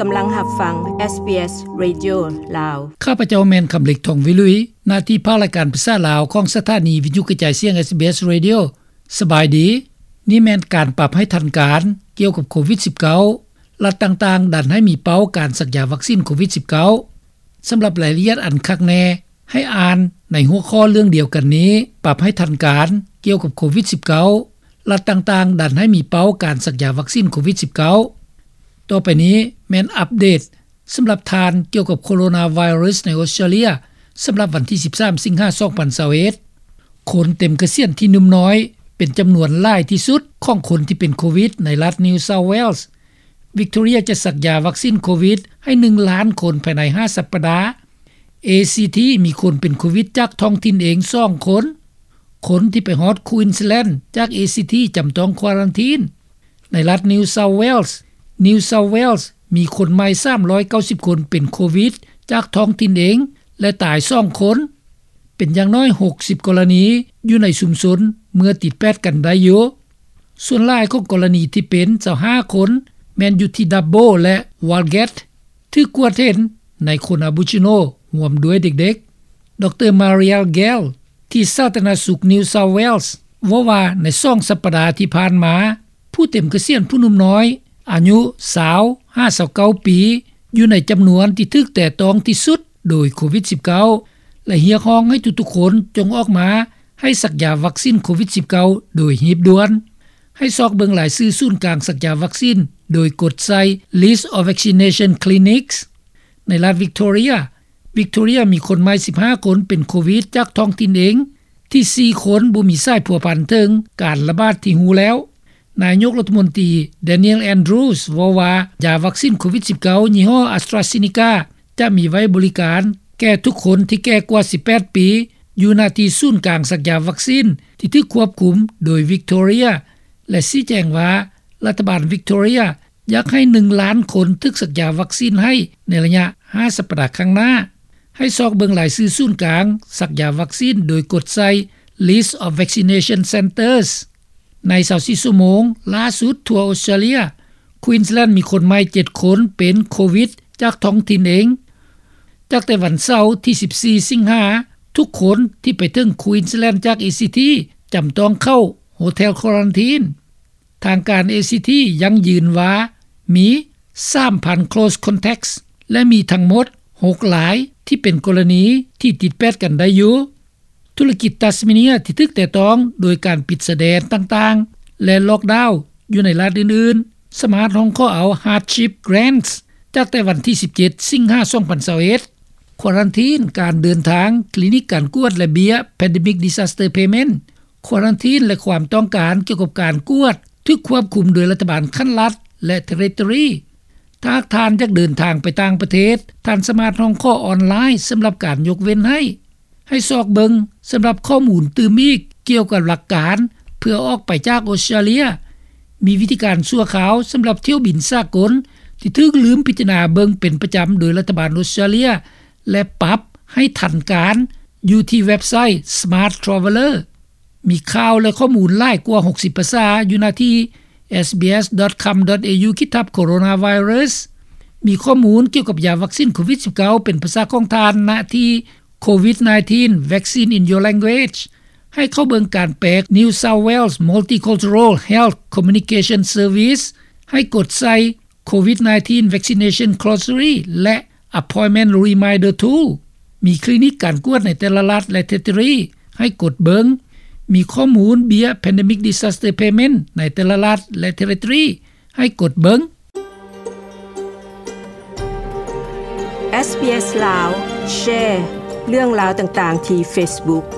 ກຳລັງຮັບຟັງ ເອສບີເອສ ເຣດິໂອ ລາວ. ຂ້າພະເຈົ້າແມ່ນ ຄຳເລັກ ທອງວິລຸຍ, ໜ້າທີ່ພາກລາຍການພາສາລາວຂອງສະຖານີວິທຍຸກະຈາຍສຽງ ເອສບີເອສ ເຣດິໂອ. ສະບາຍດີ. ນີ້ແມ່ນການປັບໃຫ້ທັນການກ່ຽວກັບໂຄວິດສິບເກົ້າ, ລັດຕ່າງໆດັນໃຫ້ມີເປົ້າການສັກຢາວັກຊີນໂຄວິດສິບເກົ້າ. ສຳລັບລາຍລະອຽດອັນຄັກແນ່ ໃຫ້ອ່ານໃນຫົວຂໍ້ເລື່ອງດຽວກັນນີ້, ປັບໃຫ້ທັນການກ່ຽວກັບໂຄວິດສິບເກົ້າ, ລັດຕ່າງໆດັນໃຫ້ມີເປົ້າການສັກຢາວັກຊີນໂຄວິດສິບເກົ້າ. ຕໍ່ໄປນີ້ແມ່ນອັບເດດສຳລັບທ່ານກ່ຽວກັບໂຄໂຣນາໄວຣັສໃນອົດສະຕຣາເລຍ ສຳລັບວັນທີສິບສາມ ສິງຫາ ສອງພັນຊາວເອັດ. ຄົນເຕັມກະສຽນທີ່ໜຸ່ມນ້ອຍເປັນຈຳນວນຫຼາຍທີ່ສຸດຂອງຄົນທີ່ເປັນໂຄວິດໃນລັດ New South Wales. Victoria ຈະສັກຢາວັກຊີນໂຄວິດໃຫ້ໜຶ່ງລ້ານຄົນພາຍໃນຫ້າສັບປະດາ. ເອຊີທີ ມີຄົນເປັນໂຄວິດຈາກທ້ອງຖິ່ນເອງສອງຄົນ. ຄົນທີ່ໄປຮອດ Queensland ຈາກ ເອຊີທີ ຈຳຕ້ອງຄວາຣັນທີນ. ໃນລັດ New South Wales, New South Wales ມີຄົນໃໝ່ສາມຮ້ອຍເກົ້າສິບຄົນເປັນໂຄວິດຈາກທ້ອງຖິ່ນເອງ ແລະ ຕາຍສອງຄົນ. ເປັນຢ່າງໜ້ອຍຫົກສິບກໍລະນີຢູ່ໃນຊຸມຊົນເມື່ອຕິດແປດກັນໄດ້ຢູ່. ສ່ວນຫຼາຍຂອງກໍລະນີທີ່ເປັນ ຊາວຫ້າຄົນ ແມ່ນຢູ່ທີ່ Dubbo ແລະ Walgett ຖືກກວດເຫັນໃນຄົນ Aboriginal ຮ່ວມດ້ວຍເດັກໆ. ດຣ Mariel Gale ທີ່ສາທາລະນະສຸກ New South Wales ເວົ້າວ່າໃນສອງສັບປະດາທີ່ຜ່ານມາ, ຜູ້ເຕັມກະສຽນຜູ້ໜຸ່ມນ້ອຍອາຍຸຊາວຫາຊາວເກົ້າປີ ຢູ່ໃນຈຳນວນທີ່ຖືກແຕະຕ້ອງທີ່ສຸດໂດຍໂຄວິດສິບເກົ້າ ແລະ ຮຽກຮ້ອງໃຫ້ທຸກໆຄົນຈົ່ງອອກມາໃຫ້ສັກຢາວັກຊີນໂຄວິດສິບເກົ້າໂດຍຮີບດ່ວນ. ໃຫ້ຊອກເບິ່ງລາຍຊື່ສູນກາງສັກຢາວັກຊີນໂດຍກົດໃສ່ List of Vaccination Clinics. ໃນລັດ Victoria, Victoria ມີຄົນໃໝ່ສິບຫ້າຄົນເປັນໂຄວິດຈາກທ້ອງຖິ່ນເອງ, ທີ່ສີ່ຄົນບໍ່ມີສາຍພົວພັນເຖິງການລະບາດທີ່ຮູ້ແລ້ວ. ນາຍົກລັດຖະມົນຕີ Daniel Andrews ເວົ້າວ່າ ຢາວັກຊີນໂຄວິດສິບເກົ້າ ຍີ່ຫໍ້ AstraZeneca ຈະມີໄວ້ບໍລິການແກ່ທຸກຄົນທີ່ແກ່ກວ່າສິບແປດປີ ຢູ່ໜ້າທີ່ສູນກາງສັກຢາວັກຊີນທີ່ຖືກຄວບຄຸມໂດຍ Victoria ແລະ ຊີ້ແຈງວ່າ ລັດຖະບານ Victoria ຢາກໃຫ້ໜຶ່ງລ້ານຄົນຖືກສັກຢາວັກຊີນໃຫ້ໃນໄລຍະຫ້າສັບປະດາຂ້າງໜ້າ. ໃຫ້ຊອກເບິ່ງລາຍຊື່ສູນກາງສັກຢາວັກຊີນໂດຍກົດໃສ່ List of Vaccination Centres. ໃນຊາວສີ່ຊົ່ວໂມງລ່າສຸດທົ່ວອົດສະຕຣາເລຍ, Queensland ມີຄົນໃໝ່ເຈັດຄົນເປັນໂຄວິດຈາກທ້ອງຖິ່ນເອງ. ຈາກແຕ່ວັນເສົາທີສິບສີ່ ສິງຫາ, ທຸກຄົນທີ່ໄປເຖິງ Queensland ຈາກ ເອຊີທີ ຈຳຕ້ອງເຂົ້າ Hotel Quarantine. ທາງການ ເອຊີທີ ຢັ້ງຢືນວ່າມີສາມພັນ close contacts ແລະ ມີທັງໝົດຫົກລາຍທີ່ເປັນກໍລະນີທີ່ຕິດແປດກັນໄດ້ຢູ່. ທຸລະກິດ Tasmania ທີ່ຖືກແຕະຕ້ອງໂດຍການປິດຊາຍແດນຕ່າງໆ ແລະ lockdown ຢູ່ໃນລັດອື່ນໆ ສາມາດຮ້ອງຂໍເອົາ hardship grants ຈາກແຕ່ວັນທີສິບເຈັດ ສິງຫາ ສອງພັນຊາວເອັດ. ຄວາຣັນທີນການເດີນທາງ, ຄລີນິກການກວດ ແລະ ເບ້ຍ Pandemic Disaster Payment. ຄວາຣັນທີນ ແລະ ຄວາມຕ້ອງການກ່ຽວກັບການກວດຖືກຄວບຄຸມໂດຍລັດຖະບານຂັ້ນລັດ ແລະ Territory. ຖ້າຫາກທ່ານຢາກເດີນທາງໄປຕ່າງປະເທດ, ທ່ານສາມາດຮ້ອງຂໍອອນລາຍສຳລັບການຍົກເວັ້ນໃຫ້. ໃຫ້ຊອກເບິ່ງສຳລັບຂໍ້ມູນຕື່ມອີກກ່ຽວກັບຫຼັກການເພື່ອອອກໄປຈາກອົດສະຕຣາເລຍ. ມີວິທີການຊົ່ວຄາວສຳລັບຖ້ຽວບິນສາກົນທີ່ຖືກລືມພິຈາລະນາເບິ່ງເປັນປະຈຳໂດຍລັດຖະບານອົດສະຕຣາເລຍ ແລະ ປັບໃຫ້ທັນການຢູ່ທີ່ເວັບໄຊ Smart Traveller. ມີຂ່າວ ແລະ ຂໍ້ມູນຫຼາຍກວ່າຫົກສິບພາສາຢູ່ໜ້າທີ່ SBS.com.au ຂີດທັບ Coronavirus. ມີຂໍ້ມູນກ່ຽວກັບຢາວັກຊີນໂຄວິດສິບເກົ້າ ເປັນພາສາຂອງທ່ານ ນະທີ່ COVID nineteen Vaccine in Your Language. ໃຫ້ເຂົ້າເບິ່ງການແປ New South Wales Multicultural Health Communication Service. ໃຫ້ກົດໃສ່ COVID nineteen Vaccination Glossary ແລະ Appointment Reminder Tool. ມີຄລີນິກການກວດໃນແຕ່ລະລັດ ແລະ Territory. ໃຫ້ກົດເບິ່ງ. ມີຂໍ້ມູນເບ້ຍ Pandemic Disaster Payment ໃນແຕ່ລະລັດ ແລະ Territory. ໃຫ້ກົດເບິ່ງ. ເອສບີເອສ ລາວ ແຊເລື່ອງລາວຕ່າງໆທີ່ Facebook.